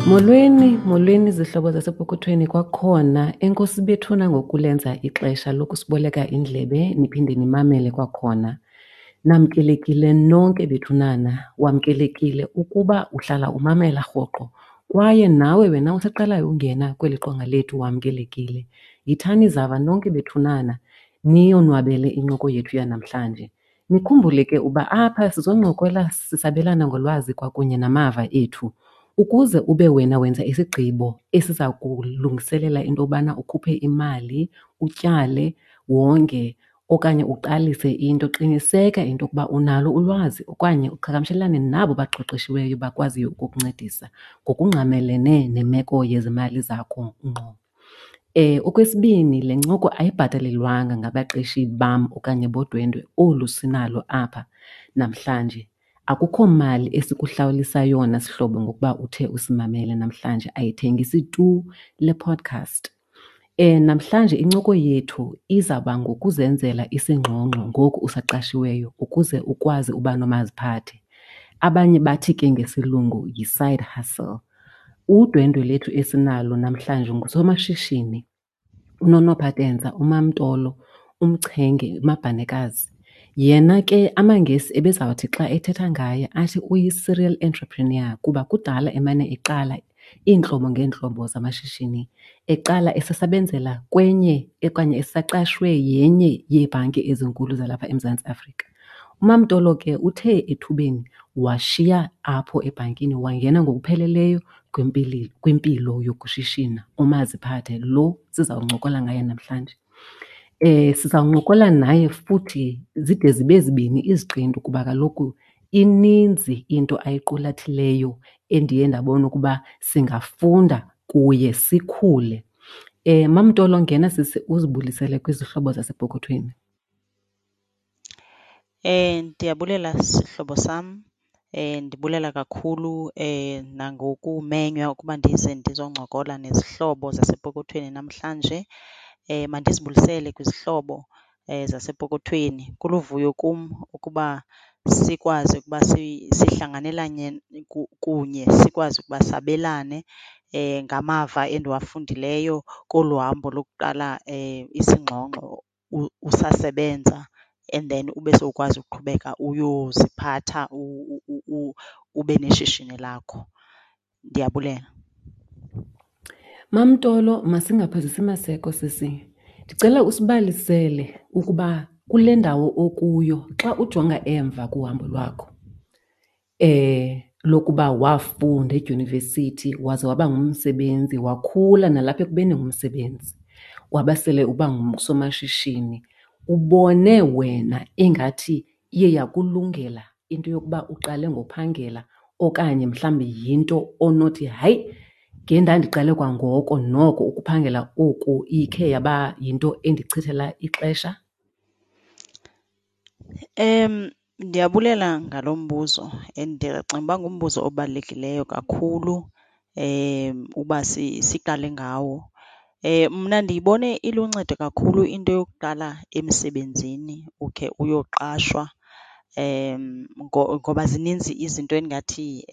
Molweni, molweni zihlobo zasepokothweni kwakhona. Enkosi bethuna ngokulenza ixesha lokusiboleka indlebe niphinde nimamele kwakhona. Namkelekile nonke bethunana, wamkelekile ukuba uhlala umamela rhoqo kwaye nawe wena usaqalayo ungena kweli qonga lethu wamkelekile. Yithani zava nonke bethunana niyonwabele incoko yethu yanamhlanje. Nikhumbule ke uba apha sizoncokola sisabelana ngolwazi kwakunye namava ethu ukuze ube wena wenza isigqibo esiza kulungiselela into yobana ukhuphe imali, utyale, wonge okanye uqalise into. Qiniseka into yokuba unalo ulwazi okanye uqhagamshelane nabo baqeqeshiweyo bakwaziyo ukukuncedisa ngokungqamelene nemeko yezimali zakho ngqo. Okwesibini, le ncoko ayibhatalelwanga ngabaqeshi bam okanye bodwendwe olu sinalo apha namhlanje. Akukho mali esikuhlawulisa yona sihlobo ngokuba uthe usimamele namhlanje, ayithengisi tu le podcast. Namhlanje incoko yethu izawuba ngokuzenzela isingxungxo ngoku usaqashiweyo ukuze ukwazi uba nomaziphathe. Abanye bathi ke ngesilungu yi-side hustle. Udwendwe lethu esinalo namhlanje ngusomashishini uNonophatenza uMamTolo uMchenge uMabhanekazi. Yena ke amaNgesi ebezawuthi xa ethetha ngaye athi uyi-serial entrepreneur kuba kudala emane eqala iintlobo ngeentlobo zamashishini. Eqala esasebenzela kwenye okanye esaqashwe yenye yeebhanki ezinkulu zalapha eMzantsi Afrika. UMamTolo ke uthe ethubeni washiya apho ebhankini wangena ngokupheleleyo kwimpilo yokushishina umaziphathe lo sizawuncokola ngaye namhlanje. Sizawuncokola naye futhi zide zibe zibini iziqendu kuba kaloku ininzi into ayiqulathileyo endiye ndabona ukuba singafunda kuye sikhule. MamTolo, ngena sisi uzibulisele kwizihlobo zasepokothweni. Ndiyabulela sihlobo sam. Ndibulela kakhulu nangokumenywa ukuba ndize ndizoncokola nezihlobo zasepokothweni namhlanje. Mandizibulisele kwizihlobo zasepokothweni. Kuluvuyo kum ukuba sikwazi ukuba sihlanganelane kunye, sikwazi ukuba sabelane ngamava endiwafundileyo kolu hambo lokuqala isingxungxo usasebenza and then ube sowukwazi ukuqhubeka uyoziphatha ube neshishini lakho. Ndiyabulela. MamTolo, masingaphozisi maseko sisi. Ndicela usibalisele ukuba kule ndawo okuyo xa ujonga emva kuhambo lwakho lokuba wafunda edyunivesithi waze waba ngumsebenzi, wakhula nalapha ekubeni ngumsebenzi, waba sele uba ngusomashishini, ubone wena ingathi iye yakulungela into yokuba uqale ngophangela okanye mhlawumbi yinto onothi hayi ngendandiqale kwangoko noko ukuphangela oku ikhe yaba yinto endichithela ixesha? Ndiyabulela ngalo mbuzo and ndiyacinga uba ngumbuzo obalulekileyo kakhulu uba siqale ngawo. Mna ndiyibone iluncedo kakhulu into yokuqala emsebenzini ukhe uyoqashwa ngoba zininzi izinto endingathi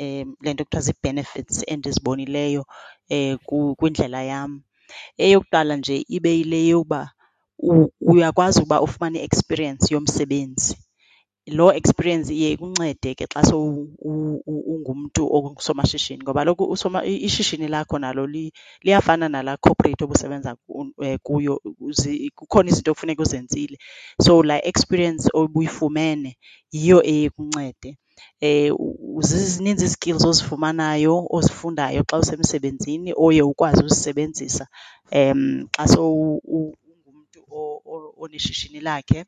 le nto kuthiwa zii-benefits endizibonileyo kwindlela yam. Eyokuqala nje ibe yile yokuba uyakwazi ukuba ufumane i-experience yomsebenzi. Loo experience iye ikuncede ke xa ungumntu ongusomashishini ngoba kaloku ishishini lakho nalo liyafana nalaa corporate obusebenza kuyo, kukhona izinto ekufuneka uzenzile. So laa experience obuyifumene yiyo eye ikuncede. Zininzi ii-skills ozifumanayo, ozifundayo xa usemsebenzini oye ukwazi uzisebenzisa xa ungumntu oneshishini lakhe.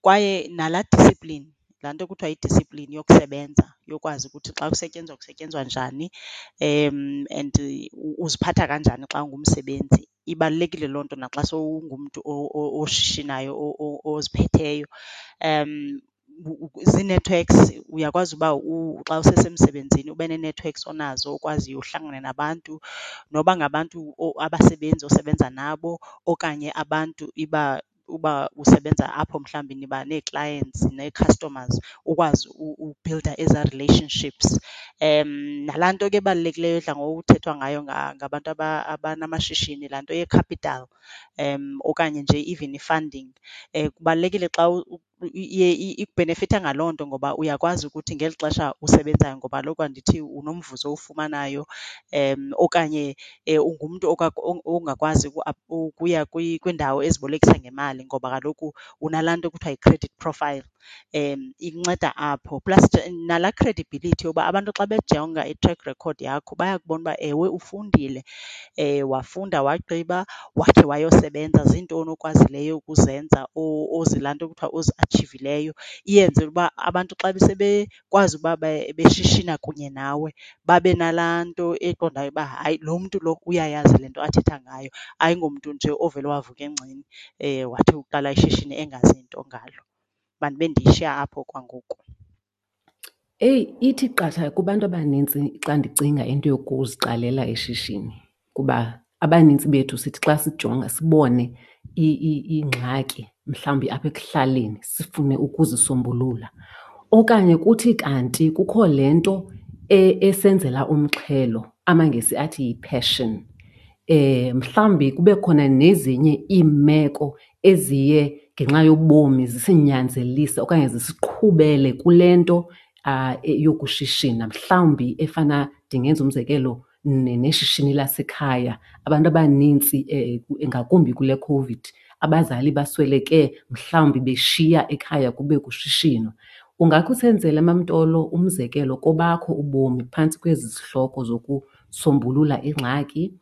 Kwaye nalaa discipline, laa nto kuthiwa yi-discipline yokusebenza, yokwazi ukuthi xa kusetyenzwa kusetyenzwa njani and uziphatha kanjani xa ungumsebenzi. Ibalulekile loo nto naxa sowungumntu oshishinayo oziphetheyo. Zii-networks, uyakwazi uba xa usesemsebenzini ube nee-networks onazo okwaziyo uhlangane nabantu noba ngabantu abasebenzi osebenza nabo okanye abantu iba. Uba usebenza apho mhlawumbi niba nee-clients nee-customers, ukwazi ubhilda ezaa relationships. Nalaa nto ke ibalulekileyo edla ngokuthethwa ngayo ngabantu abanamashishini, laa nto ye-capital okanye nje even i-funding. Kubalulekile xa iye ikubhenefitha ngaloo nto ngoba uyakwazi ukuthi ngeli xesha usebenzayo, ngoba kaloku andithi unomvuzo owufumanayo okanye ungumntu ongakwazi ukuya kwiindawo ezibolekisa ngemali ngoba kaloku unalaa nto kuthiwa yi-credit profile, ikunceda apho. Plus nalaa credibility yoba abantu xa bejonga i-track record yakho bayakubona uba ewe ufundile, wafunda wagqiba wakhe wayosebenza, zintoni okwazileyo ukuzenza laa nto kuthiwa oziatshivileyo. Iyenze uba abantu xa sebekwazi uba beshishina kunye nawe babe nalaa nto eqondayo uba hayi lo mntu lo uyayazi le nto athetha ngayo, ayingomntu nje ovele wavuka engceni wathi uqala ishishini engazi nto ngalo. Mandibe ndiyishiya apho okwangoku. Eyi, ithi qatha kubantu abanintsi xa ndicinga into yokuziqalela ishishini kuba abanintsi bethu sithi xa sijonga sibone iingxaki mhlawumbi apha ekuhlaleni sifune ukuzisombulula. Okanye kuthi kanti kukho le nto esenzela umxhelo, amaNgesi athi yi-passion. Mhlawumbi kube khona nezinye iimeko eziye ngenxa yobomi zisinyanzelise okanye zisiqhubele kule nto yokushishina. Mhlawumbi efana, ndingenza umzekelo, neshishini lasekhaya. Abantu abanintsi ngakumbi kule COVID, abazali basweleke mhlawumbi beshiya ekhaya kube kushishinwa. Ungakhe usenzele, MamTolo, umzekelo kobakho ubomi phantsi kwezi zihloko zokusombulula ingxaki,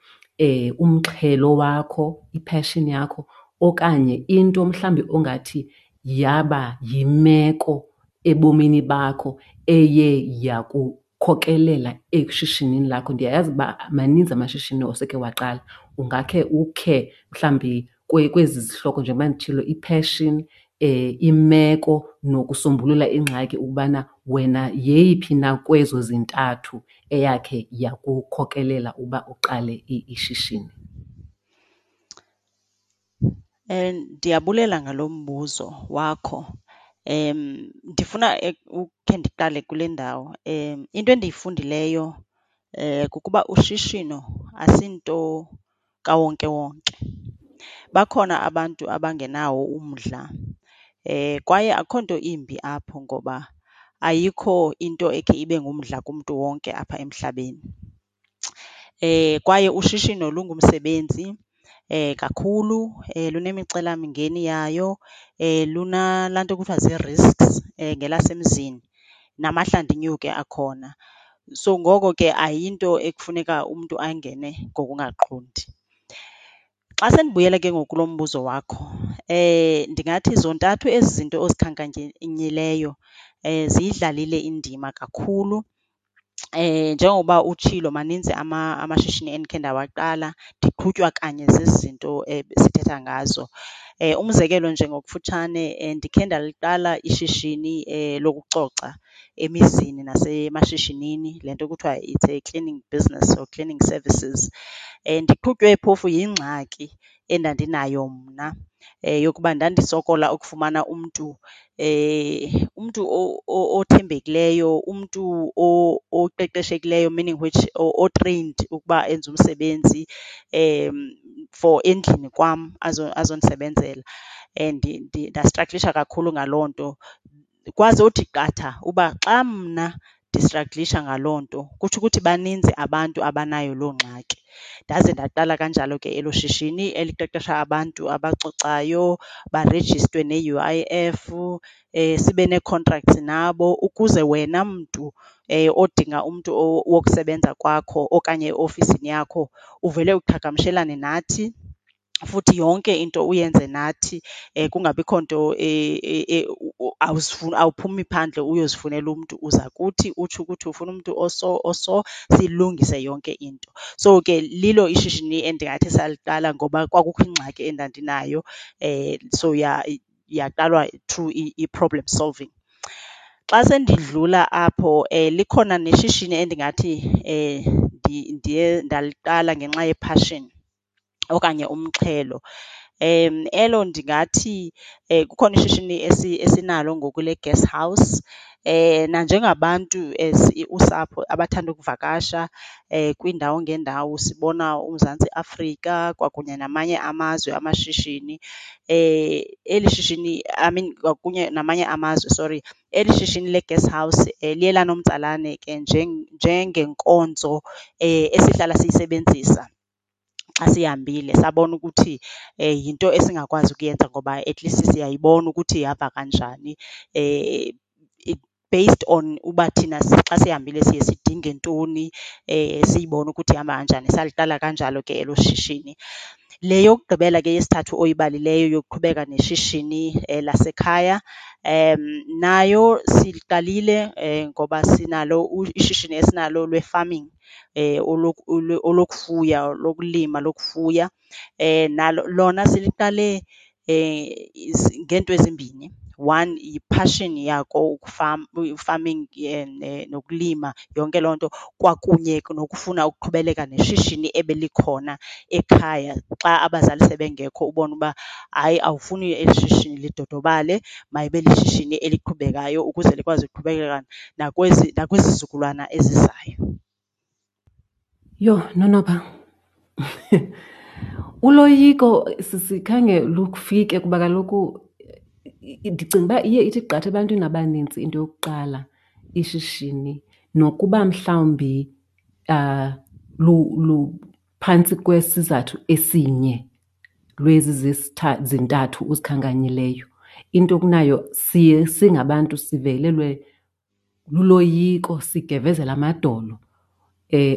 umxhelo wakho, i-passion yakho, okanye into mhlawumbi ongathi yaba yimeko ebomini bakho eye yakukhokelela eshishinini lakho? Ndiyayazi uba maninzi amashishini oseke waqala. Ungakhe ukhe mhlawumbi kwezi zihloko njengoba nditshilo, i-passion, imeko nokusombulula ingxaki, ukubana wena yeyiphi na kwezo zintathu eyakhe yakukhokelela uba uqale ishishini? Ndiyabulela ngalo mbuzo wakho. Ndifuna ukhe ndiqale kule ndawo. Into endiyifundileyo kukuba ushishino asinto kawonkewonke. Bakhona abantu abangenawo umdla kwaye akukho nto imbi apho ngoba ayikho into ekhe ibe ngumdla kumntu wonke apha emhlabeni. Kwaye ushishino lungumsebenzi kakhulu, lunemicelamingeni yayo, lunalaa nto kuthiwa zii-risks ngelasemzini, namahlandinyuke akhona. So, ngoko ke ayinto ekufuneka umntu angene ngokungaqondi. Xa sendibuyela ke ngoku kulo mbuzo wakho, ndingathi zontathu ezi zinto ozikhankanyileyo ziyidlalile indima kakhulu. Njengoba utshilo maninzi amashishini endikhe ndawaqala ndiqhutywa kanye zezi zinto sithetha ngazo. Umzekelo nje ngokufutshane, ndikhe ndaliqala ishishini lokucoca emizini nasemashishinini, le nto kuthiwa it's a cleaning business or cleaning services. Ndiqhutywe phofu yingxaki endandinayo mna yokuba ndandisokola ukufumana umntu, umntu othembekileyo, umntu oqeqeshekileyo, meaning which o-trained ukuba enze umsebenzi for endlini kwam azondisebenzela. Ndastragilisha kakhulu ngaloo nto. Kwazothi qatha uba xa mna ndistragilisha ngaloo nto kutsho ukuthi baninzi abantu abanayo loo ngxaki. Ndaze ndaqala kanjalo ke elo shishini eliqeqesha abantu abacocayo, barejistwe ne-UIF, sibe nee-contracts nabo ukuze wena mntu odinga umntu wokusebenza kwakho okanye eofisini yakho uvele uqhagamshelane nathi, futhi yonke into uyenze nathi kungabikho nto awuphumi phandle uyozifunela umntu. Uza kuthi utsho ukuthi ufuna umntu oso oso, siyilungise yonke into. So ke lilo ishishini endingathi saliqala ngoba kwakukho ingxaki endandinayo, so yaqalwa through i-problem solving. Xa sendidlula apho likhona neshishini endingathi ndiye ndaliqala ngenxa yephashini okanye umxhelo. Elo ndingathi kukhona ishishini esinalo ngoku le-guest house. Nanjengabantu as usapho abathanda ukuvakasha kwiindawo ngeendawo sibona uMzantsi Afrika kwakunye namanye amazwe amashishini, eli shishini, I mean kwakunye namanye amazwe, sorry. Eli shishini le-guest house liye lanomtsalane ke njengenkonzo esihlala siyisebenzisa xa sihambile. Sabona ukuthi yinto esingakwazi ukuyenza ngoba at least siyayibona ukuthi ihamba kanjani based on uba thina xa sihambile siye sidinge ntoni, siyibone ukuthi ihamba kanjani. Saliqala kanjalo ke elo shishini. Le yokugqibela ke yesithathu oyibalileyo yokuqhubeka neshishini lasekhaya, nayo siliqalile ngoba sinalo ishishini esinalo lwe-farming, olokufuya, lokulima, lokufuya. Nalo lona siliqale ngeento ezimbini. One, yiphashini yako i-farming nokulima, yonke loo nto, kwakunye nokufuna ukuqhubeleka neshishini ebelikhona ekhaya xa abazali sebengekho ubone uba hayi awufuni eli shishini lidodobale, mayibe lishishini eliqhubekayo ukuze likwazi ukuqhubekeka nakwezi nakwizizukulwana ezizayo. Yho, Nonopha, uloyiko sisi khange lufike kuba kaloku ndicinga uba iye ithi qatha ebantwini abanintsi into yokuqala ishishini nokuba mhlawumbi luphantsi kwesizathu esinye lwezi zintathu uzikhankanyileyo. Into kunayo siye singabantu sivelelwe luloyiko, sigevezela amadolo.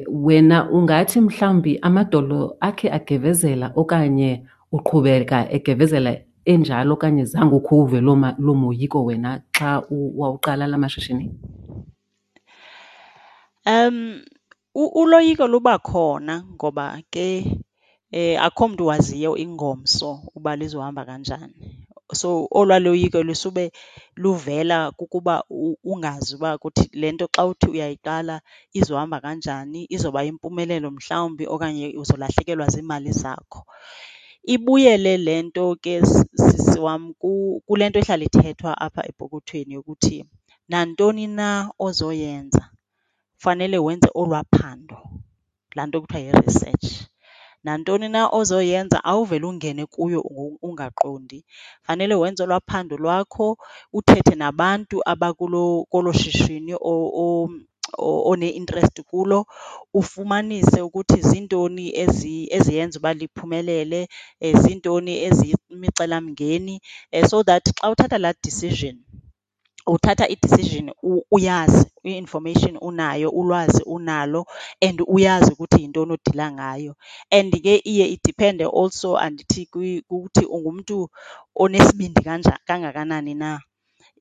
Wena ungathi mhlawumbi amadolo akhe agevezela okanye uqhubeka egevezela enjalo okanye zange ukhe uwuve loo moyiko wena xa wawuqala la mashishini? Uloyiko luba khona ngoba ke akukho mntu waziyo ingomso uba lizohamba kanjani. So olwaa loyiko lusube luvela kukuba ungazi uba kuthi le nto xa uthi uyayiqala izohamba kanjani, izoba yimpumelelo mhlawumbi okanye uzolahlekelwa ziimali zakho. Ibuyele le nto ke sisi wam kule nto ihlala ithethwa apha epokothweni yokuthi nantoni na ozoyenza fanele wenze olwaa phando, laa nto kuthiwa yi-research. Nantoni na ozoyenza awuvele ungene kuyo ungaqondi, fanele wenze olwaa phando lwakho, uthethe nabantu abakuloo, kolo shishini one-interest kulo, ufumanise ukuthi ziintoni eziyenza uba liphumelele, ziintoni eziyimicelamngeni so that xa uthatha laa decision uthatha i-decision uyazi, i-information unayo, ulwazi unalo and uyazi ukuthi yintoni odila ngayo. And ke iye idiphende also andithi kukuthi ungumntu onesibindi kangakanani na.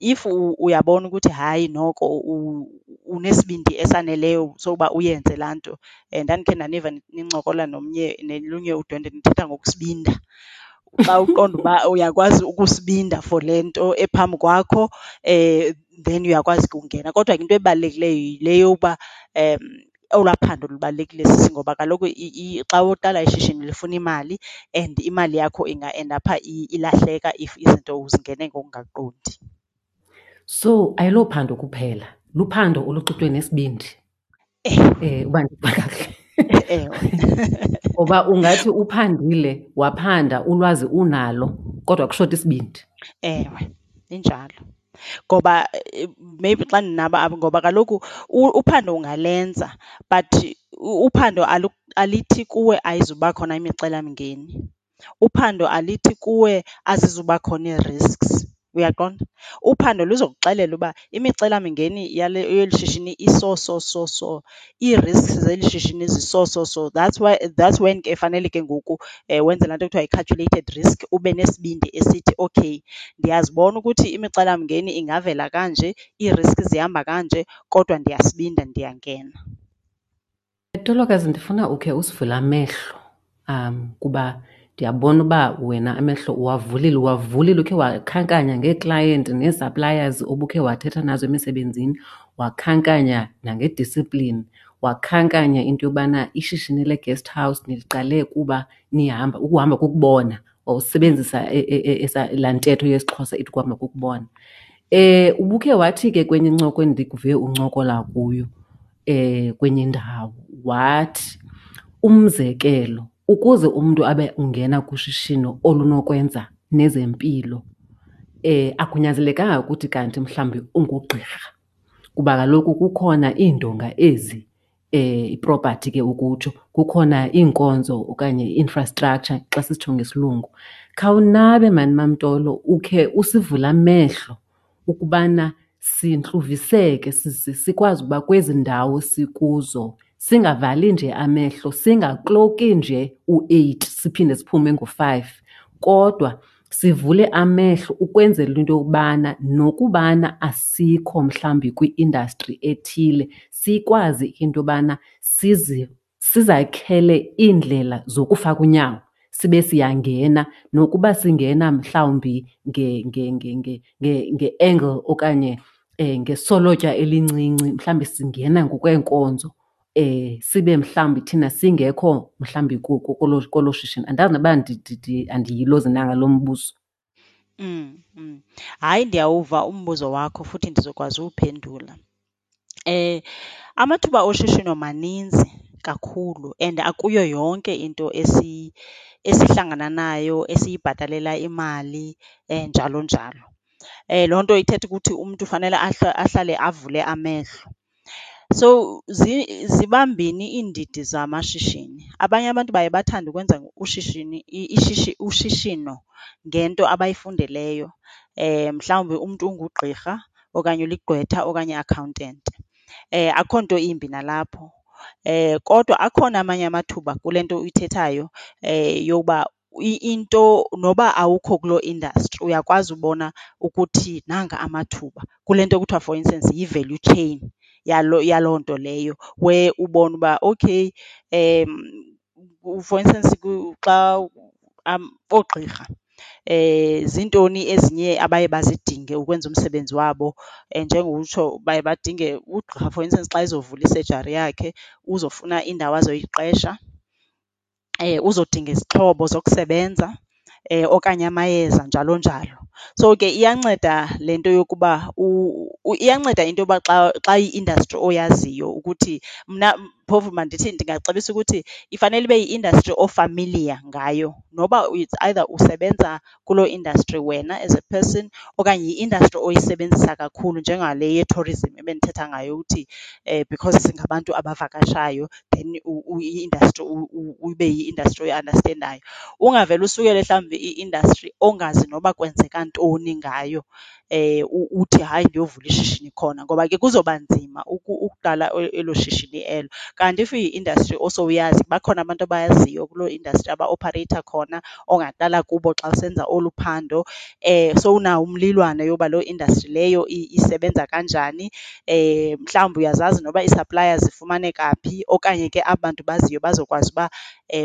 If uyabona ukuthi hayi noko unesibindi esaneleyo soba uyenze laa nto, ndandikhe ndaniva nincokola nomnye nolunye udwendwe nithetha ngokusibinda. Xa uqonda uba uyakwazi ukusibinda for le nto ephambi kwakho then uyakwazi ke ukungena. Kodwa ke into ebalulekileyo yile yokuba olwaa phando lubalulekile sisi ngoba kaloku xa uqala ishishini lifuna imali and imali yakho inga-endapha ilahleka if izinto uzingene ngokungaqondi. So ayilophando kuphela, luphando oluxutywe nesibindi. Ewe. Uba ndiva kakuhle. Ewe. Ngoba ungathi uphandile, waphanda, ulwazi unalo, kodwa kushota isibindi. Ewe, injalo. Ngoba maybe xa ndinaba apho, ngoba kaloku uphando ungalenza but uphando alithi kuwe ayizuba khona imicelamngeni. Uphando alithi kuwe azizuba khona ii-risks, uyaqonda? Uphando luzokuxelela uba imicelamingeni yale, yeli shishini iso so so so, ii-risks zeli shishini ziso so so. That's why, that's when ke fanele ke ngoku wenze laa nto kuthiwa yi-calculated risk, ube nesibindi esithi okay ndiyazibona ukuthi imicelamngeni ingavela kanje, ii-risks zihamba kanje, kodwa ndiyasibinda ndiyangena. Tolokazi, ndifuna ukhe usivule amehlo, kuba ndiyabona uba wena amehlo uwavulile, uwavulile ukhe wakhankanya ngeeklayenti nee-suppliers obukhe wathetha nazo emisebenzini, wakhankanya nange-discipline, wakhankanya into yobana ishishini le-guest house niliqale kuba nihamba, ukuhamba kukubona. Wawusebenzisa laa ntetho yesiXhosa ithi ukuhamba kukubona. Ubukhe wathi ke kwenye incoko endikuve uncokola kuyo kwenye indawo wathi, umzekelo, ukuze umntu abe ungena kushishino olunokwenza nezempilo akunyanzelekanga ukuthi kanti mhlawumbi ungugqirha, kuba kaloku kukhona iindonga ezi, ipropathi ke ukutsho, kukhona iinkonzo okanye i-infrastructure xa sisitsho ngesilungu. Khawunabe maan MamTolo ukhe usivule amehlo ukubana sintluviseke sikwazi ukuba kwezi ndawo sikuzo singavali nje amehlo, singakloki nje u-8 siphinde siphume ngo-5, kodwa sivule amehlo ukwenzela into yokubana nokubana asikho mhlawumbi kwi-industry ethile, sikwazi into yobana sizakhele iindlela zokufaka unyawo sibe siyangena, nokuba singena mhlawumbi nge-angle okanye ngesolotya elincinci, mhlawumbi singena ngokweenkonzo, sibe mhlawumbi thina singekho mhlawumbi kolo shishini. Andazi noba andiyilozi na ngalo mbuzo. Hayi, ndiyawuva umbuzo wakho futhi ndizokwazi uwuphendula. Amathuba oshishino maninzi kakhulu and akuyo yonke into esihlangana nayo esiyibhatalela imali njalo njalo. Loo nto ithetha ukuthi umntu fanele ahlale avule amehlo. So ziba mbini iindidi zamashishini. Abanye abantu baye bathande ukwenza ushishini ushishino ngento abayifundeleyo. Mhlawumbi umntu ungugqirha okanye uligqwetha okanye i-accountant. Akukho nto imbi nalapho. Kodwa akhona amanye amathuba kule nto uyithethayo yokuba into noba awukho kuloo industry uyakwazi ubona ukuthi nanga amathuba kule nto kuthiwa for instance yi-value chain yaloo nto leyo, where ubone uba okay for instance xa oogqirha zintoni ezinye abaye bazidinge ukwenza umsebenzi wabo. Njengokutsho baye badinge ugqirha for instance xa ezovula isejari yakhe uzofuna indawo azoyiqesha, uzodinga izixhobo zokusebenza okanye amayeza, njalo njalo. So ke iyanceda le nto yokuba iyanceda into yoba xa, xa iyi-industry oyaziyo ukuthi mna phofu mandithi ndingacebisa ukuthi ifanele ibe yi-industry o-familiar ngayo noba it's either usebenza kuloo industry wena as a person okanye yi-industry oyisebenzisa kakhulu njengale ye-tourism ebendithetha ngayo ukuthi because singabantu abavakashayo then i-industry ibe yi-industry oyiandastendayo. Ungavele usukele mhlawumbi i-industry ongazi noba kwenzeka ntoni ngayo uthi hayi ndiyovula ishishini khona, ngoba ke kuzoba nzima ukuqala elo shishini elo. Kanti if iyi-industry osowuyazi, bakhona abantu abayaziyo kuloo industry abaopareyitha khona ongaqala kubo xa usenza olu phando, sowunawo umlilwane yoba loo industry leyo isebenza kanjani. Mhlawumbi uyazazi noba ii-suppliers zifumaneka phi okanye ke aba bantu baziyo bazokwazi uba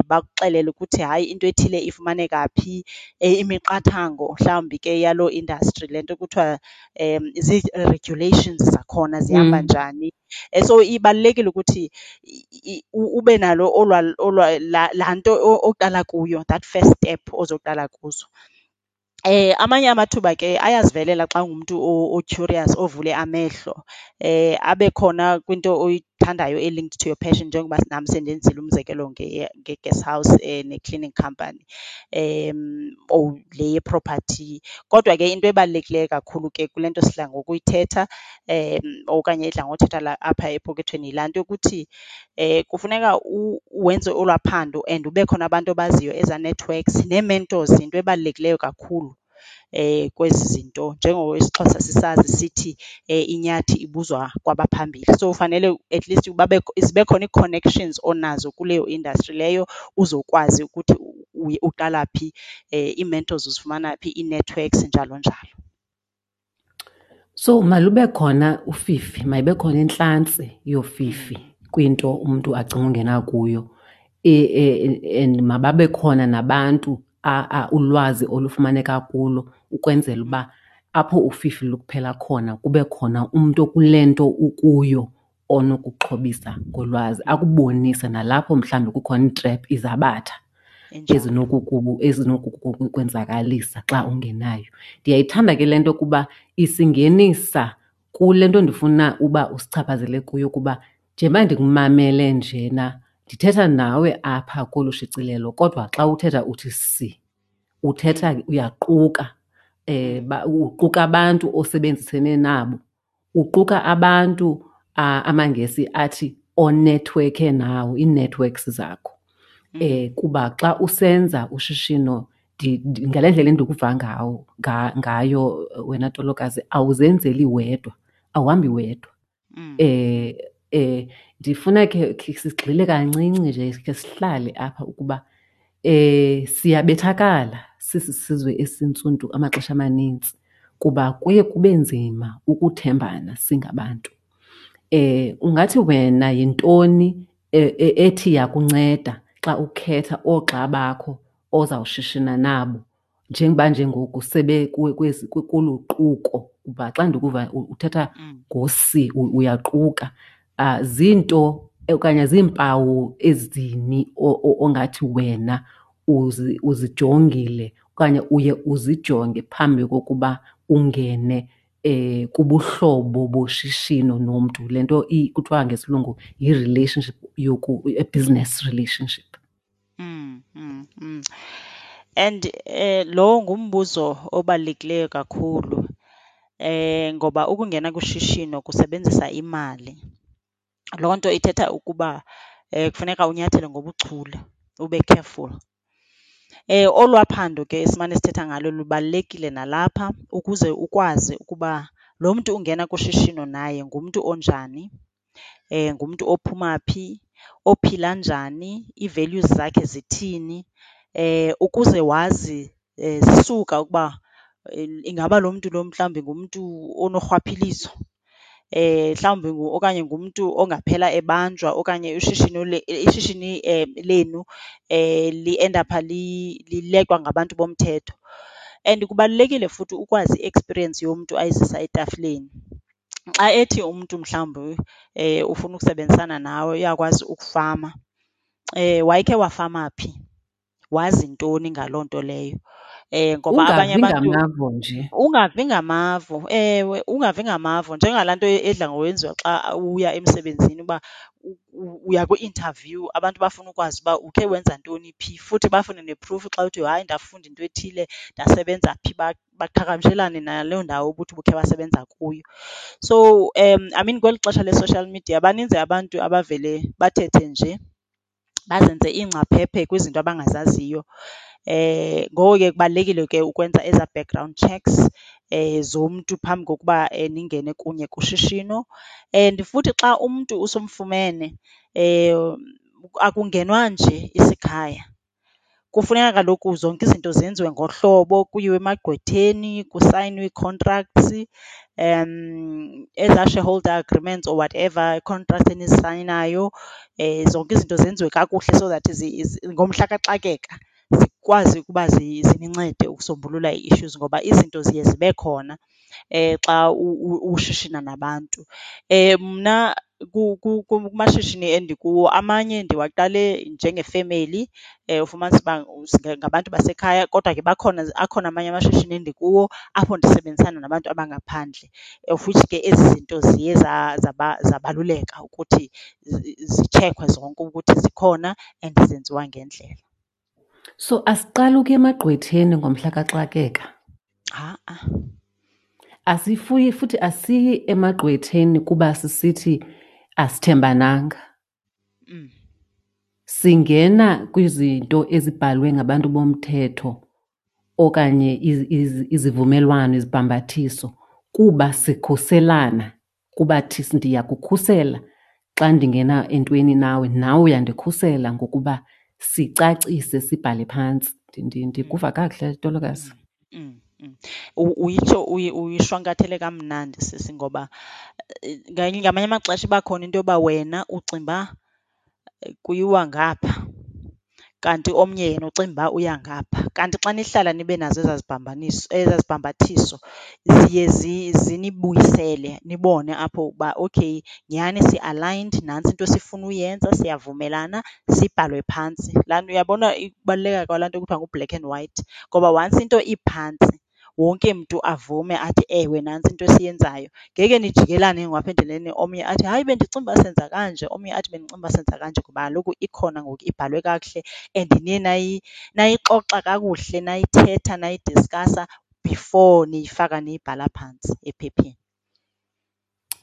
bakuxelele ukuthi hayi into ethile ifumaneka phi. Imiqathango mhlawumbi ke yaloo industry, le nto kuthiwa zii-regulations zakhona zihamba njani. So ibalulekile ukuthi ube nalo olwaa, olwaa, laa, laa nto oqala kuyo, that first step ozoqala kuzo. Amanye amathuba ke ayazivelela xa ungumntu o-curious, ovule amehlo, abe khona kwinto oyithandayo e-linked to your passion, njengoba nam sendenzile umzekelo nge-guest house ne-cleaning company or le ye-property. Kodwa ke into ebalulekileyo kakhulu ke kule nto sidla ngokuyithetha okanye edla ngothethwa la apha epokothweni yilaa nto yokuthi kufuneka wenze olwaa phando and ube khona abantu obaziyo, ezaa networks nee-mentors yinto ebalulekileyo kakhulu kwezi zinto. Njengoko isiXhosa sisazi sithi inyathi ibuzwa kwabaphambili, so fanele at least zibe khona ii-connections onazo kuleyo industry leyo uzokwazi ukuthi uqala phi, ii-mentors uzifumana phi, ii-networks njalo njalo. So malube khona ufifi, mayibe khona intlantsi yofifi kwinto umntu acinga ungena kuyo. And mababe khona nabantu ulwazi olufumaneka kulo ukwenzela uba apho ufifi lukuphela khona kube khona umntu okule nto ukuyo onokuxhobisa ngolwazi, akubonise nalapho mhlawumbi kukhona iitrep, izabatha. Injalo. Ezinokukwenzakalisa xa ungenayo. Ndiyayithanda ke le nto kuba isingenisa kule nto ndifuna uba usichaphazele kuyo kuba njengoba ndikumamele njena ndithetha nawe apha kolu shicilelo kodwa xa uthetha uthi si, uthetha uyaquka, uquka abantu osebenzisene nabo, uquka abantu amaNgesi athi onethiwekhe nawo, ii-networks zakho. Kuba xa usenza ushishino ngale ndlela endikuva ngayo wena Tolokazi, awuzenzeli wedwa, awuhambi wedwa. Ndifuna ke sigxile kancinci nje, khe sihlale apha ukuba siyabethakala sisisizwe esintsundu amaxesha amanintsi kuba kuye kube nzima ukuthembana singabantu. Ungathi wena yintoni ethi yakunceda xa ukhetha oogxa bakho ozawushishina nabo njengoba nje ngoku sebe kolu quko? Kuba xa ndikuva uthetha ngosi uyaquka, zinto okanye ziimpawu ezini ongathi wena uzijongile okanye uye uzijonge phambi kokuba ungene kubuhlobo boshishino nomntu, le nto kuthiwa ngesilungu yi-relationship a business relationship? And lowo ngumbuzo obalulekileyo kakhulu, ngoba ukungena kushishino kusebenzisa imali. Loo nto ithetha ukuba kufuneka unyathele ngobuchule, ube careful. Olwaa phando ke esimane sithetha ngalo lubalulekile nalapha ukuze ukwazi ukuba lo mntu ungena kushishino naye ngumntu onjani, ngumntu ophuma phi, ophila njani, ii-values zakhe zithini, ukuze wazi zisuka ukuba ingaba lo mntu lo mhlawumbi ngumntu onorhwaphilizo, mhlawumbi okanye ngumntu ongaphela ebanjwa okanye ushishino ishishini lenu liendapha lileqwa ngabantu bomthetho. And kubalulekile futhi ukwazi i-experience yomntu ayizisa etafileni. Xa ethi umntu mhlawumbi ufuna ukusebenzisana nawe uyakwazi ukufama, wayekhe wafama phi, wazi ntoni ngaloo nto leyo? Ngoba abanye Ungavi abantu ngamavo nje. Ungavi ngamavo, ewe, ungavi ngamavo. Njengalaa nto edla ngokwenziwa xa uya emsebenzini uba uya kwi-interview, abantu bafuna ukwazi uba ukhe wenza ntoni phi, futhi bafune ne-proof xa uthi hayi ndafunda into ethile ndasebenza phi, baqhagamshelane naloo ndawo ubuthi ubukhe wasebenza kuyo. So I mean kweli xesha le-social media baninzi abantu abavele bathethe nje, bazenze iingcaphephe kwizinto abangazaziyo. Ngoko ke kubalulekile ke ukwenza ezaa background checks zomntu phambi kokuba ningene kunye kushishino. And futhi xa umntu usumfumene akungenwa nje isikhaya. Kufuneka kaloku zonke izinto zenziwe ngohlobo, kuyiwe emagqwetheni, kusayinwe ii-contracts, ezaa shareholder agreements or whatever contracts enizisayinayo. Zonke izinto zenziwe kakuhle so that ngomhla kaxakeka zikwazi ukuba zinincede ukusombulula ii-issues, ngoba izinto ziye zibe khona xa ushishina nabantu. Mna kumashishini endikuwo amanye ndiwaqale njengefemeli, ufumanise uba ngabantu basekhaya, kodwa ke bakhona, akhona amanye amashishini endikuwo apho ndisebenzisana nabantu abangaphandle, of which ke ezi zinto ziye zabaluleka ukuthi zitshekhwe zonke ukuthi zikhona and zenziwa ngendlela. So asiqali ukuya emagqwetheni ngomhla kaxakeka? Ha-a. Asifuyi futhi asiyi emagqwetheni kuba sisithi asithembananga. Singena kwizinto ezibhalwe ngabantu bomthetho okanye izivumelwano, izibhambathiso kuba sikhuselana, kuba ndiyakukhusela xa ndingena entweni nawe, nawe uyandikhusela ngokuba sicacise sibhale phantsi. Ndikuva kakuhle, Tolokazi? Uyitsho uyishwankathele kamnandi sisi, ngoba ngamanye amaxesha iba khona into yoba wena ucinga uba kuyiwa ngapha. Kanti omnye yena ucinga uba uya ngapha. Kanti xa nihlala nibe nazo ezaa zibambaniso, ezaa zibhambathiso ziye zinibuyisele nibone apho uba okay nyhani si-aligned, nantsi into esifuna uyenza, siyavumelana, sibhalwe phantsi. Laa nto, uyabona ukubaluleka kwalaa nto kuthiwa ngu-black and white? Ngoba once into iphantsi wonke mntu avume athi, ewe, nantsi into esiyenzayo, ngeke nijikelane ke ngoku apha endleleni omnye athi, hayi bendicinga uba senza kanje, omnye athi bendicinga uba senza kanje, kuba kaloku ikhona ngoku ibhalwe kakuhle and niye nayixoxa kakuhle nayithetha nayidiskhasa before niyifaka niyibhala phantsi ephepheni.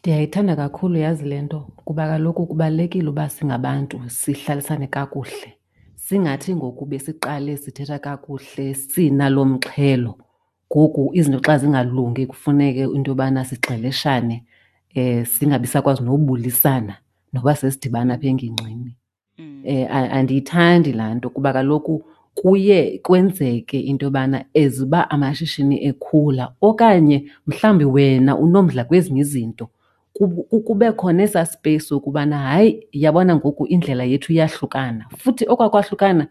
Ndiyayithanda kakhulu yazi le nto kuba kaloku kubalulekile uba singabantu sihlalisane kakuhle. Singathi ngoku besiqale sithetha kakuhle sinalo mxhelo, ngoku izinto xa zingalungi kufuneke into yobana sigxeleshane, singabi sakwazi nobulisana noba sesidibana apha engingqini. Andiyithandi laa nto kuba kaloku kuye kwenzeke into yobana as uba amashishini ekhula okanye mhlawumbi wena unomdla kwezinye izinto, kube khona esaa space sokubana hayi, yabona ngoku indlela yethu iyahlukana. Futhi okwa kwahlukana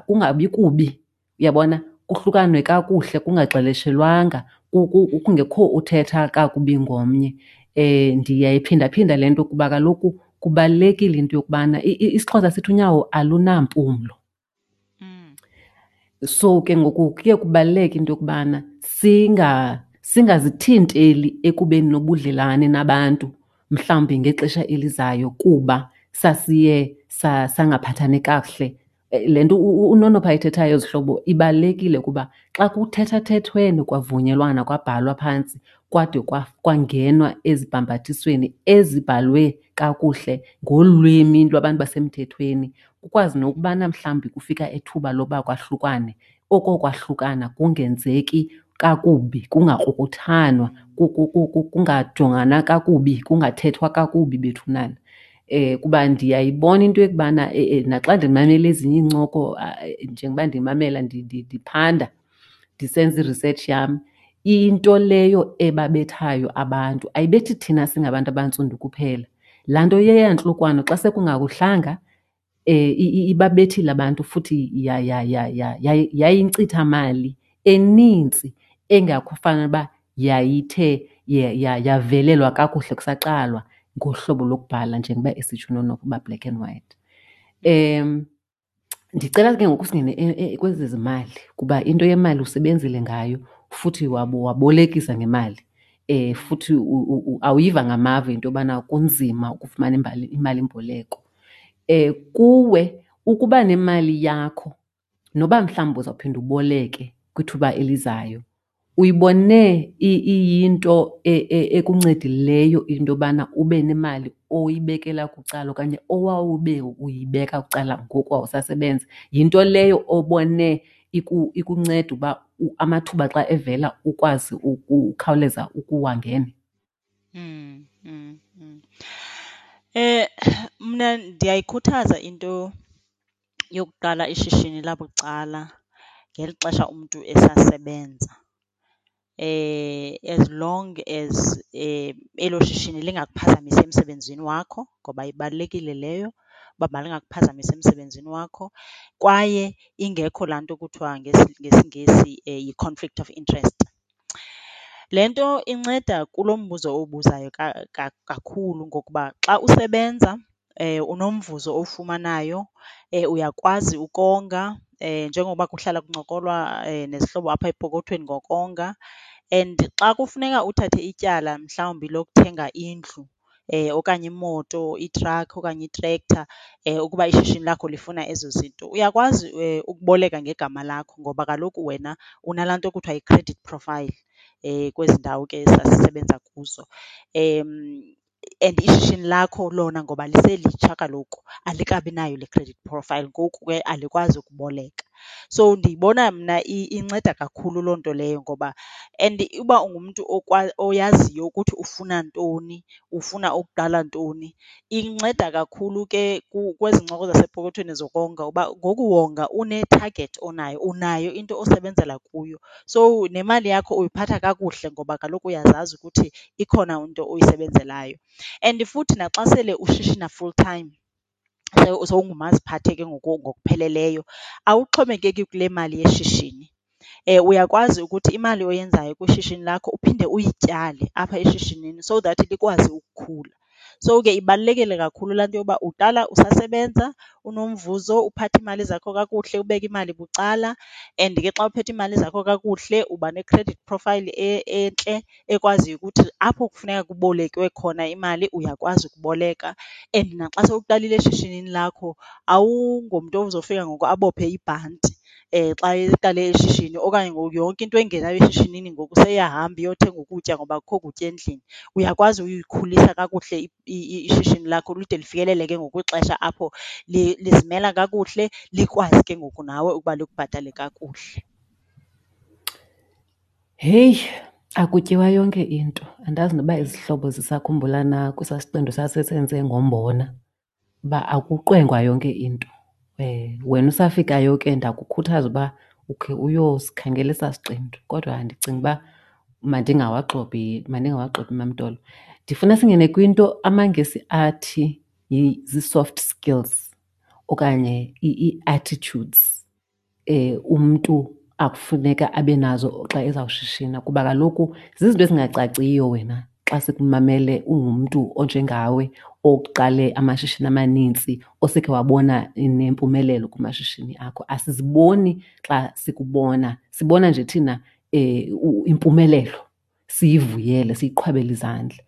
kungabi kubi, uyabona, kuhlukanwe kakuhle kungagxeleshelwanga, kungekho uthetha kakubi ngomnye. Ndiyayiphindaphinda le nto kuba kaloku kubalulekile into yokubana isiXhosa sithi unyawo alunampumlo. So ke ngoku kuye kubaluleke into yokubana singazithinteli ekubeni nobudlelwane nabantu mhlawumbi ngexesha elizayo kuba sasiye sangaphathani kakuhle. Le nto uNonopha ayithethayo zihlobo ibalulekile kuba xa kuthethathethwene kwavunyelwana kwabhalwa phantsi kwade kwangenwa ezibhambathisweni ezibhalwe kakuhle ngolwimi lwabantu basemthethweni, kukwazi nokubana mhlawumbi kufika ithuba loba kwahlukwane, oko kwahlukana kungenzeki kakubi, kungakrukuthanwa, kungajongana kakubi, kungathethwa kakubi bethunana. Kuba ndiyayibona into yokubana naxa ndimamele ezinye iincoko, njengoba ndimamela ndiphanda ndisenza i-research yam, into leyo ebabethayo abantu ayibethi thina singabantu abantsundu kuphela. Laa nto yeyantlukwano xa sekungakuhlanga, ibabethile abantu futhi yayinkcithamali enintsi engakufanele uba yayithe yavelelwa kakuhle kusaqalwa ngohlobo lokubhala njengoba esitsho uNonopha uba black and white. Ndicela ke ngoku singene kwezi zimali kuba into yemali usebenzile ngayo futhi wabolekisa ngemali. Futhi awuyiva ngamava into yobana kunzima ukufumana imalimboleko. Kuwe ukuba nemali yakho noba mhlawumbi uzawuphinda uboleke kwithuba elizayo, uyibone iyinto ekuncedileyo into yobana ube nemali oyibekela bucala okanye owawube uyibeka bucala ngoku wawusasebenza? Yinto leyo obone ikunceda uba amathuba xa evela ukwazi ukhawuleza ukuwangena? Mna ndiyayikhuthaza into yokuqala ishishini labucala ngeli xesha umntu esasebenza, as long as elo shishini lingakuphazamisi emsebenzini wakho, ngoba ibalulekile leyo uba malingakuphazamisi emsebenzini wakho. Kwaye ingekho laa nto kuthiwa ngesiNgesi yi-conflict of interest. Le nto inceda kulo mbuzo uwubuzayo kakhulu ngokuba xa usebenza unomvuzo owufumanayo, uyakwazi ukonga njengoba kuhlala kuncokolwa nezihlobo apha epokothweni ngokonga. And xa kufuneka uthathe ityala mhlawumbi lokuthenga indlu okanye imoto, itrakhi okanye itrektha, ukuba ishishini lakho lifuna ezo zinto, uyakwazi ukuboleka ngegama lakho ngoba kaloku wena unalaa nto kuthiwa yi-credit profile kwezi ndawo ke sasisebenza kuzo. And ishishini lakho lona ngoba liselitsha kaloku alikabi nayo le credit profile, ngoku ke alikwazi ukuboleka. So ndiyibona mna inceda kakhulu loo nto leyo ngoba and uba ungumntu oyaziyo ukuthi ufuna ntoni, ufuna ukuqala ntoni, inceda kakhulu ke kwezi ncoko zasepokothweni zokonga uba ngoku wonga une-target onayo, unayo into osebenzela kuyo. So nemali yakho uyiphatha kakuhle ngoba kaloku uyazazi ukuthi ikhona into oyisebenzelayo. And futhi naxa sele ushishina full time, Sowungumaziphathe ke ngoku ngokupheleleyo, awuxhomekeki kule mali yeshishini. Uyakwazi ukuthi imali oyenzayo kwishishini lakho uphinde uyityale apha eshishinini so that likwazi ukukhula. So ke ibalulekile kakhulu laa nto yoba uqala usasebenza unomvuzo, uphathe iimali zakho kakuhle, ubeke imali bucala. And ke xa uphethe iimali zakho kakuhle uba ne-credit profile entle ekwaziyo ukuthi apho kufuneka kubolekwe khona imali uyakwazi ukuboleka. And naxa sowuqalile eshishinini lakho awungomntu ozofika ngoku abophe ibhanti xa eqale ishishini okanye ngoku yonke into engenayo eshishinini ngoku seyiyahamba iyothenga ukutya ngoba akukho kutya endlini. Uyakwazi uyikhulisa kakuhle ishishini lakho lide lifikelele ke ngoku kwixesha apho lizimela kakuhle, likwazi ke ngoku nawe ukuba likubhatale kakuhle. Heyi, akutyiwa yonke into. Andazi noba izihlobo zisakhumbula na kwesaa siqendu sasisenze ngombona, uba akuqwengwa yonke into. Wena usafikayo ke ndakukhuthaza uba ukhe uyosikhangela esaa siqendu, kodwa ndicinga uba mandingawagxobhi, mandingawagxobhi MaMtolo. Ndifuna singene kwinto amaNgesi athi zii-soft skills okanye ii-attitudes umntu akufuneka abe nazo xa ezawushishina, kuba kaloku zizinto ezingacaciyo wena xa sikumamele ungumntu onjengawe oqale amashishini amanintsi, osekhe wabona nempumelelo kumashishini akho. Asiziboni xa sikubona, sibona nje thina impumelelo, siyivuyele, siyiqhwabele izandla.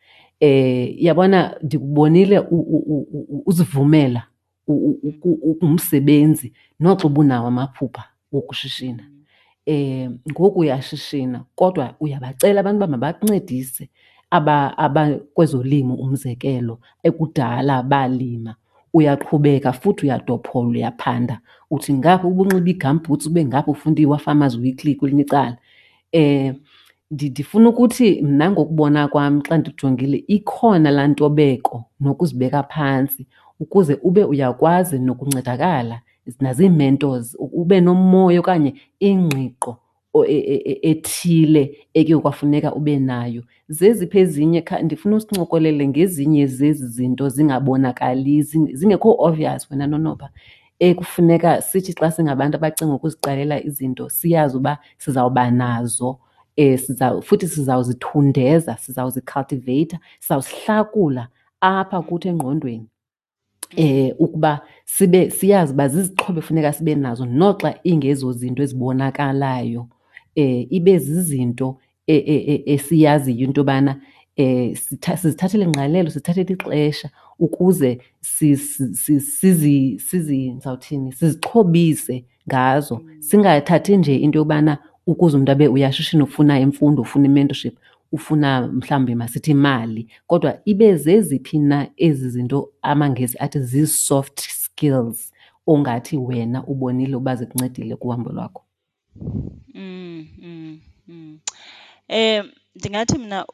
Yabona ndikubonile uzivumela ungumsebenzi noxa ubunawo amaphupha wokushishina. Ngoku uyashishina kodwa uyabacela abantu uba mabakuncedise abakwezolimo umzekelo, ekudala balima. Uyaqhubeka futhi uyadophola, uyaphanda, uthi ngapha ubunxiba ii-gumboots ube ngapha ufunda iWaFarmers Weekly kwelinye icala. Ndifuna ukuthi mna ngokubona kwam xa ndijongile ikhona laa ntobeko nokuzibeka phantsi ukuze ube uyakwazi nokuncedakala nazii-mentors, ube nomoya okanye ingqiqo ethile ekuye kwafuneka ube nayo. Zeziphi ezinye? Ndifuna usincokolele ngezinye zezi zinto zingabonakali, zingekho obvious wena Nonopha, ekufuneka sithi xa singabantu abacinga ukuziqalela izinto siyazi uba sizawuba nazo, futhi sizawuzithundeza, sizawuzicultivate-a, sizawuzihlakula apha kuthi engqondweni. Ukuba sibe siyazi uba zizixhobo efuneka sibe nazo noxa ingezo zinto ezibonakalayo, ibe zizinto esiyaziyo into yobana sizithathele ingqalelo, sithathele ixesha ukuze ndizawuthini, sizixhobise ngazo. Singathathi nje into yobana ukuze umntu abe uyashishina ufuna imfundo, ufuna i-mentorship, ufuna mhlawumbi masithi imali, kodwa ibe zeziphi na ezi zinto amaNgesi athi zii-soft skills ongathi wena ubonile uba zikuncedile kuhambo lwakho? Ndingathi mna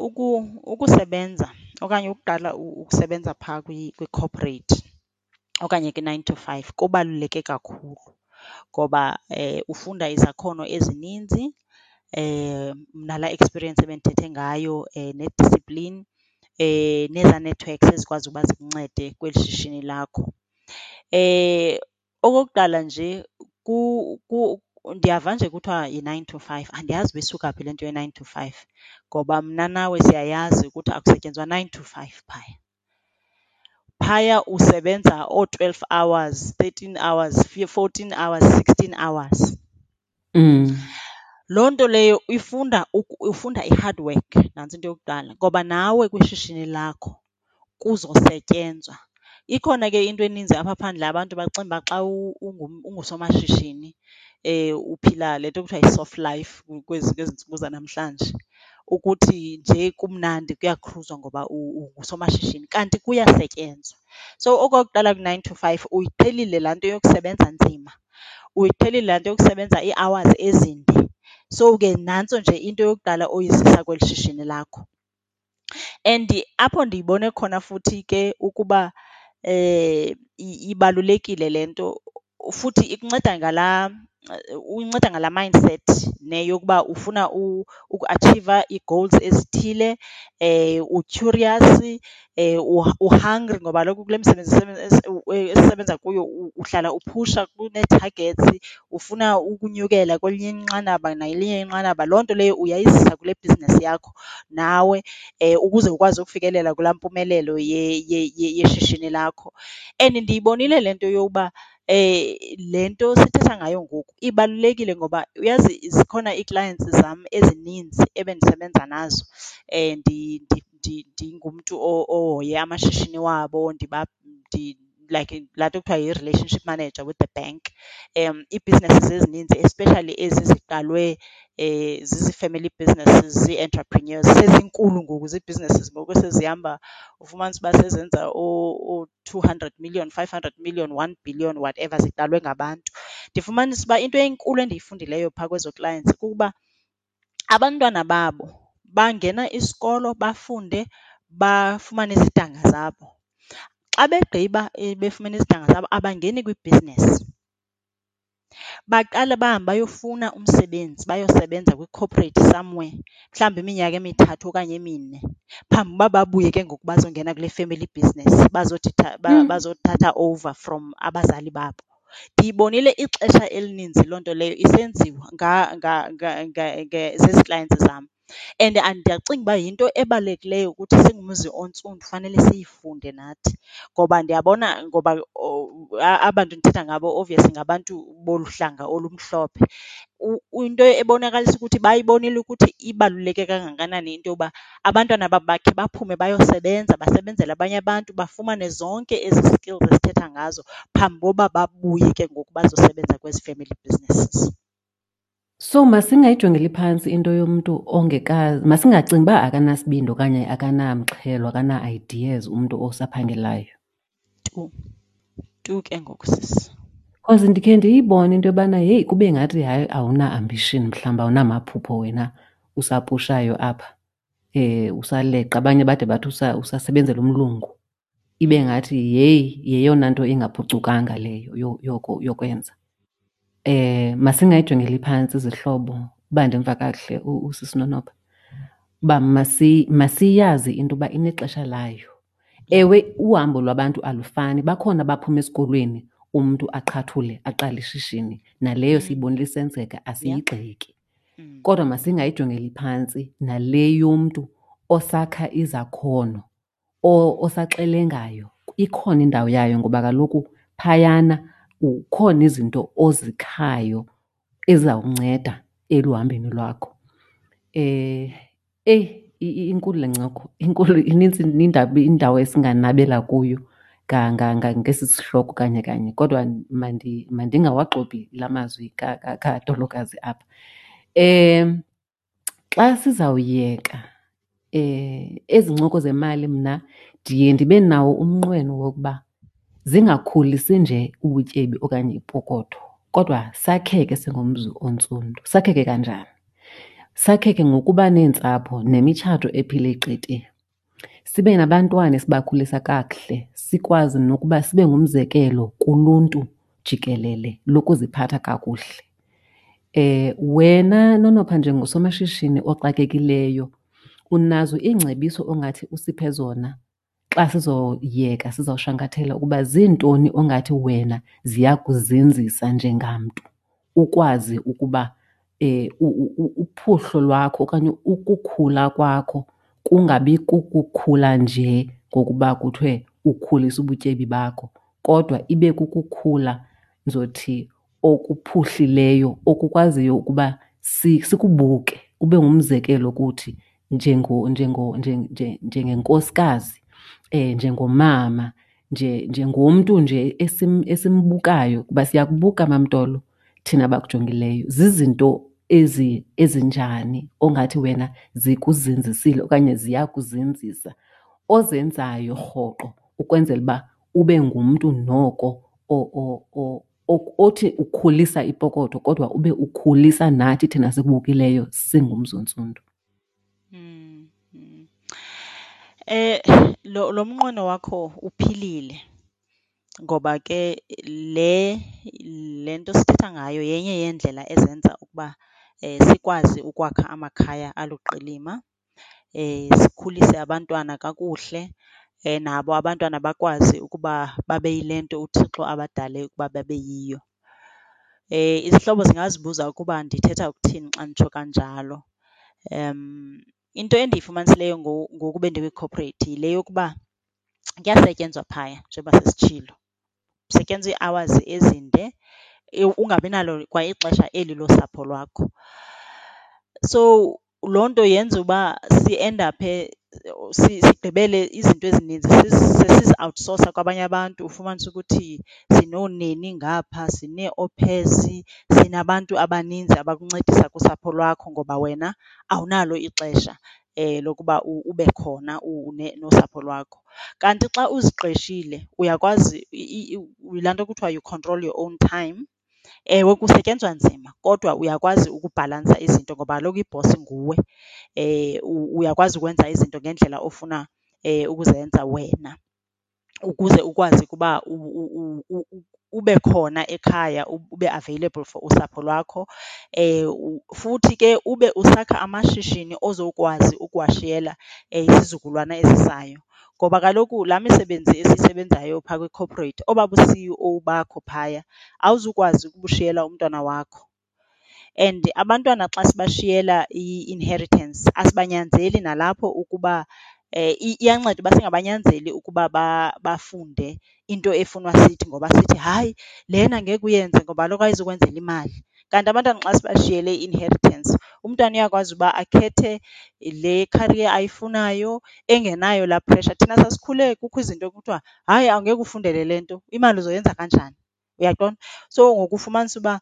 ukusebenza okanye ukuqala ukusebenza phaa kwi-corporate okanye kwi-nine to five kubaluleke kakhulu ngoba ufunda izakhono ezininzi, nalaa experience ebendithethe ngayo, ne-discipline, nezaa networks ezikwazi uba zikuncede kweli shishini lakho. Okokuqala nje, ndiyava nje kuthiwa yi-nine to five, andiyazi uba isuka phi le nto ye-nine to five ngoba mna nawe siyayazi ukuthi akusetyenzwa nine to five phaya. Phaya usebenza oo-twelve hours, 13 hours, 14 hours, 16 hours. Loo nto leyo ufunda i-hard work, nantso into yokuqala, ngoba nawe kwishishini lakho kuzosetyenzwa. Ikhona ke into eninzi apha phandle, abantu bacinga uba xa ungusomashishini uphila le nto kuthiwa yi-soft life kwezi ntsuku zanamhlanje, ukuthi nje kumnandi kuyakhruzwa ngoba ungusomashishini, kanti kuyasetyenzwa. So okokuqala ku-nine to five uyiqhelile laa nto yokusebenza nzima, uyiqhelile laa nto yokusebenza ii-hours ezinde. So ke nantso nje into yokuqala oyizisa kweli shishini lakho. And apho ndiyibone khona futhi ke ukuba ibalulekile le nto, futhi ikunceda ngalaa. Uyinceda ngalaa mindset ne yokuba ufuna ukuatshiva ii-goals ezithile, u-curious, u-hungry ngoba kaloku kule misebenzi esisebenza kuyo uhlala uphusha kunee-targets, ufuna ukunyukela kwelinye inqanaba nakwelinye inqanaba. Loo nto leyo uyayizisa kule bhizinesi yakho nawe ukuze ukwazi ukufikelela kulaa mpumelelo yeshishini lakho. And ndiyibonile le nto yokuba le nto sithetha ngayo ngoku ibalulekile ngoba uyazi zikhona ii-clients zam ezininzi ebendisebenza nazo ndingumntu ohoye amashishini wabo, like laa nto kuthiwa yi-relationship manager with the bank. Ii-businesses ezininzi especially ezi ziqalwe zizi-family businesses, zii-entrepreneurs, sezinkulu ngoku zii-businesses ngoku esezihamba ufumanise uba sezenza oo-two hundred million, five hundred million, one billion, whatever, ziqalwe ngabantu. Ndifumanise uba into enkulu endiyifundileyo phaa kwezo clients kukuba abantwana babo bangena isikolo bafunde bafumane izidanga zabo. Xa begqiba befumene izidanga zabo abangeni kwibhizinesi. Baqale bahambe bayofuna umsebenzi, bayosebenza kwi-corporate somewhere mhlawumbi iminyaka emithathu okanye emine phambi uba babuye ke ngoku bazongena kule family business, bazothi bazothatha over from abazali babo. Ndiyibonile ixesha elininzi loo nto leyo isenziwa zezi clients zam. And ndiyacinga uba yinto ebalulekileyo ukuthi singumzi ontsundu fanele siyifunde nathi ngoba ndiyabona ngoba aba bantu ndithetha ngabo obviously ngabantu bolu hlanga olumhlophe. Into ebonakalisa ukuthi bayibonile ukuthi ibaluleke kangakanani into yoba abantwana babo bakhe baphume bayosebenza, basebenzele abanye abantu, bafumane zonke ezi skills esithetha ngazo phambi koba babuye ke ngoku bazosebenza kwezi family businesses. So masingayijongeli phantsi into yomntu ongekazi, masingacingi uba akanasibindi okanye akanamxhelo, akana-ideas umntu osaphangelayo. Tu, tu ke ngoku sisi. Because ndikhe ndiyibone into yobana heyi kube ngathi hayi awuna-ambition mhlawumbi awunamaphupho wena usapushayo apha, usaleqa. Abanye bade bathi usasebenzela umlungu. Ibe ngathi yeyi yeyona nto ingaphucukanga leyo yokwenza. Masingayijongeli phantsi izihlobo uba ndimva kakuhle usisi Nonopha, uba masiyazi into yoba inexesha layo. Ewe, uhambo lwabantu alufani, bakhona abaphuma esikolweni umntu aqhathule aqale ishishini, naleyo siyibonile isenzeka, asiyigxeki. Kodwa masingayijongeli phantsi nale yomntu osakha izakhono, osaxelengayo. Ikhona indawo yayo ngoba kaloku phayana kukhona izinto ozikhayo ezizawukunceda eluhambeni lwakho. Eyi, inkulu le ncoko, inkulu, inintsi indawo esinganabela kuyo ngesi sihloko kanye kanye, kodwa mandingawaxopi la mazwi kaTolokazi apha. Xa sizawuyeka ezi ncoko zemali mna ndiye ndibe nawo umnqweno wokuba zingakhulisi nje ubutyebi okanye ipokotho, kodwa sakheke singumzi ontsundu. Sakheke kanjani? Sakheke ngokuba neentsapho nemitshato ephile qete. Sibe nabantwana esibakhulisa kakuhle, sikwazi nokuba sibe ngumzekelo kuluntu jikelele lokuziphatha kakuhle. Wena Nonopha njengosomashishini oxakekileyo unazo iingcebiso ongathi usiphe zona xa sizoyeka sizawushankathela ukuba ziintoni ongathi wena ziyakuzinzisa njengamntu ukwazi ukuba uphuhlo lwakho okanye ukukhula kwakho kungabi kukukhula nje ngokuba kuthiwe ukhulisa ubutyebi bakho, kodwa ibe kukukhula ndizothi okuphuhlileyo okukwaziyo ukuba sikubuke ube ngumzekelo kuthi njengenkosikazi, njengomama, njengomntu nje esimbukayo kuba siyakubuka MamTolo thina bakujongileyo. Zizinto ezinjani ongathi wena zikuzinzisile okanye ziyakuzinzisa ozenzayo rhoqo ukwenzela uba ube ngumntu noko othi ukhulisa ipokotho kodwa ube ukhulisa nathi thina sikubukileyo singumzi ontsundu? Lo mnqweno wakho uphilile. Ngoba ke le le nto sithetha ngayo yenye yeendlela ezenza ukuba sikwazi ukwakha amakhaya aluqilima, sikhulise abantwana kakuhle, nabo abantwana bakwazi ukuba babe yile nto uThixo abadale ukuba babe yiyo. Izihlobo zingazibuza ukuba ndithetha ukuthini xa nditsho kanjalo. Into endiyifumanisileyo ngoku bendikwi-corporate yile yokuba kuyasetyenzwa phaya njengoba sesitshilo. Kusetyenzwa ii-hours ezinde ungabi nalo kwa ixesha eli losapho lwakho. So loo nto yenza uba siendaphe sigqibele izinto ezininzi sesiziawutsosa kwabanye abantu. Ufumanise ukuthi sinooneni ngapha, sinee-au pairs, sinabantu abaninzi abakuncedisa kusapho lwakho ngoba wena awunalo ixesha lokuba ube khona nosapho lwakho. Kanti xa uziqeshile uyakwazi, yilaa nto kuthiwa you control your own time. Ewe, kusetyenzwa nzima kodwa uyakwazi ukubhalansa izinto ngoba kaloku ibhosi nguwe. Uyakwazi ukwenza izinto ngendlela ofuna ukuzenza wena ukuze ukwazi ukuba ube khona ekhaya, ube available for usapho lwakho. Futhi ke ube usakha amashishini ozokwazi ukuwashiyela isizukulwana esizayo. Ngoba kaloku laa misebenzi esiyisebenzayo phaa kwi-corporate, obaa bu-CEO bakho phaya awuzukwazi ukubushiyela umntwana wakho. And abantwana xa sibashiyela i-inheritance asibanyanzeli nalapho ukuba, iyanceda uba singabanyanzeli ukuba bafunde into efunwa sithi ngoba sithi, hayi lena ngeke uyenze ngoba kaloku ayizukwenzela imali. Kanti abantwana xa sibashiyele i-inheritance, umntwana uyakwazi uba akhethe le career ayifunayo engenayo laa pressure. Thina sasikhule kukho izinto ekuthiwa, hayi awungeke ufundele le nto, imali uzoyenza kanjani? Uyaqonda? So ngoku ufumanise uba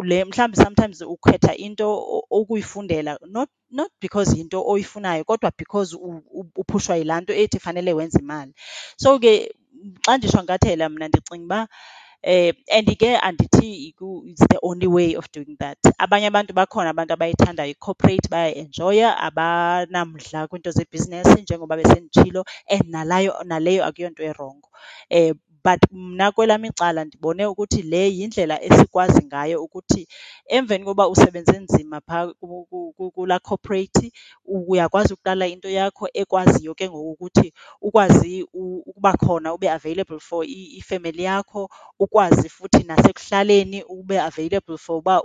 le mhlawumbi sometimes ukhetha into ukuyifundela not, not because yinto oyifunayo kodwa because uphushwa yilaa nto ethi fanele wenze imali. So ke xa ndishwankathela mna ndicinga uba and ke andithi it's the only way of doing that. Abanye abantu bakhona abantu abayithandayo i-corporate, bayayienjoya, abanamdla kwiinto zebhizinesi njengoba besenditshilo and nalayo, naleyo akuyonto irongo. But mna kwelam icala ndibone ukuthi le yindlela esikwazi ngayo ukuthi emveni koba usebenze nzima phaa kulaa corporate, uyakwazi ukuqala into yakho ekwaziyo ke ngoku ukuthi ukwazi ukuba khona ube available for ifemeli yakho, ukwazi futhi nasekuhlaleni ube available for uba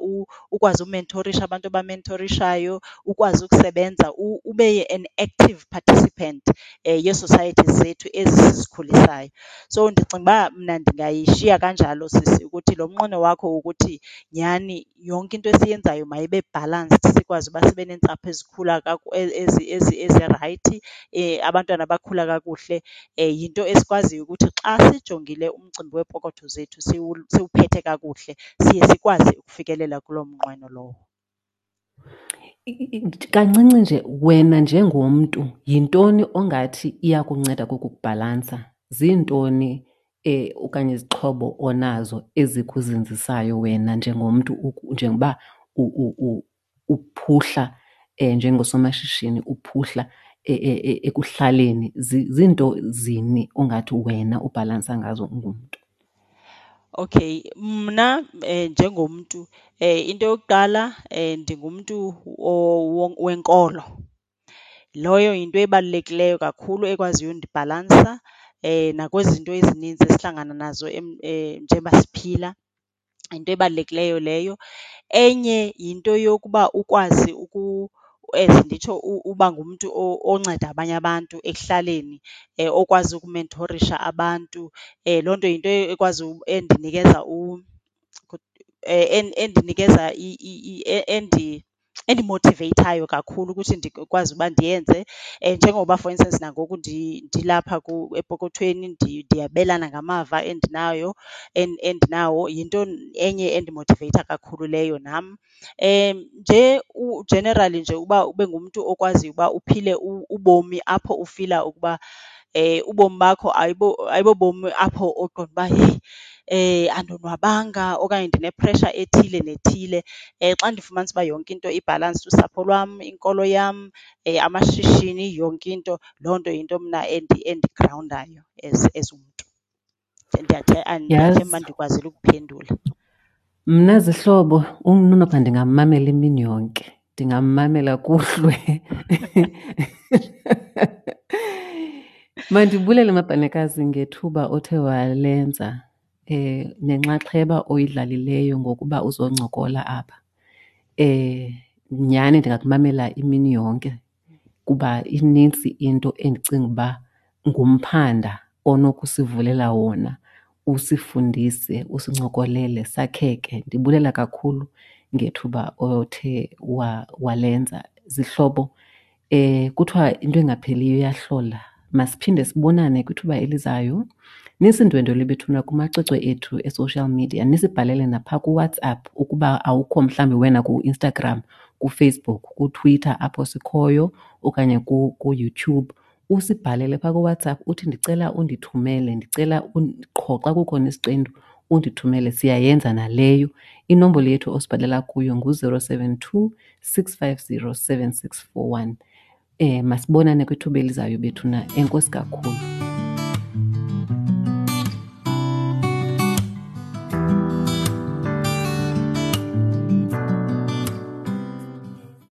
ukwazi umenthorisha abantu obamentorishayo, ukwazi ukusebenza ube an active participant yee-societies zethu ezi sizikhulisayo. So ndicinga uba mna ndingayishiya kanjalo sisi ukuthi lo mnqweno wakho wokuthi nyhani yonke into esiyenzayo mayibe balanced sikwazi uba sibe neentsapho ezikhula ezirayithi, abantwana abakhula kakuhle, yinto esikwaziyo ukuthi xa sijongile umcimbi weepokotho zethu siwuphethe kakuhle, siye sikwazi ukufikelela kuloo mnqweno lowo. Kancinci nje, wena njengomntu yintoni ongathi iyakunceda kukubhalansa? Ziintoni okanye izixhobo onazo ezikuzinzisayo wena njengomntu njengoba uphuhla njengosomashishini, uphuhla ekuhlaleni? Ziinto zini ongathi wena ubhalansa ngazo ungumntu? Okay, mna njengomntu into yokuqala ndingumntu wenkolo. Loyo yinto ebalulekileyo kakhulu ekwaziyo undibhalansa nakwizinto ezininzi esihlangana nazo njengoba siphila, yinto ebalulekileyo leyo. Enye yinto yokuba ukwazi as nditsho uba ngumntu onceda abanye abantu ekuhlaleni, okwazi ukumenthorisha abantu. Loo nto yinto ekwazi endinikeza endinikeza endimothiveyithayo kakhulu ukuthi ndikwazi uba ndiyenze. Njengoba for instance nangoku ndilapha epokothweni ndiyabelana ngamava endinayo, endinawo, yinto enye endimothiveyitha kakhulu leyo nam. Nje u-generally nje uba ube ngumntu okwaziyo uba uphile ubomi apho ufila ukuba ubomi bakho ayibobomi apho oqonda uba heyi andonwabanga okanye ndine-pressure ethile nethile. Xa ndifumanisa uba yonke into ibhalansd, usapho lwam, inkolo yam, amashishini, yonke into, loo nto yinto mna endigrawundayo as umntu. Ndiyathemba ndikwazile ukuphendula. Mna zihlobo uNonopha ndingammamela imini yonke, ndingammamela kuhlwe. Mandibulele Mabhanekazi ngethuba othe walenza nenxaxheba oyidlalileyo ngokuba uzoncokola apha. Nyhani ndingakumamela imini yonke kuba inintsi into endicinga uba ngumphanda onokusivulela wona usifundise, usincokolele sakheke. Ndibulela kakhulu ngethuba othe walenza. Zihlobo, kuthiwa into engapheliyo iyahlola. Masiphinde sibonane kwithuba elizayo. Nisindwendwele bethuna kumacwecwe ethu e-social media, nisibhalele naphaa kuWhatsApp ukuba awukho mhlawumbi wena kuInstagram, kuFacebook, kuTwitter apho sikhoyo okanye kuYouTube. Usibhalele phaa kuWhatsApp uthi ndicela undithumele, ndicela qho xa kukhona isiqendu undithumele. Siyayenza naleyo. Inombolo yethu osibhalela kuyo ngu-072 650 7641. Masibonane kwithuba elizayo bethuna. Enkosi kakhulu.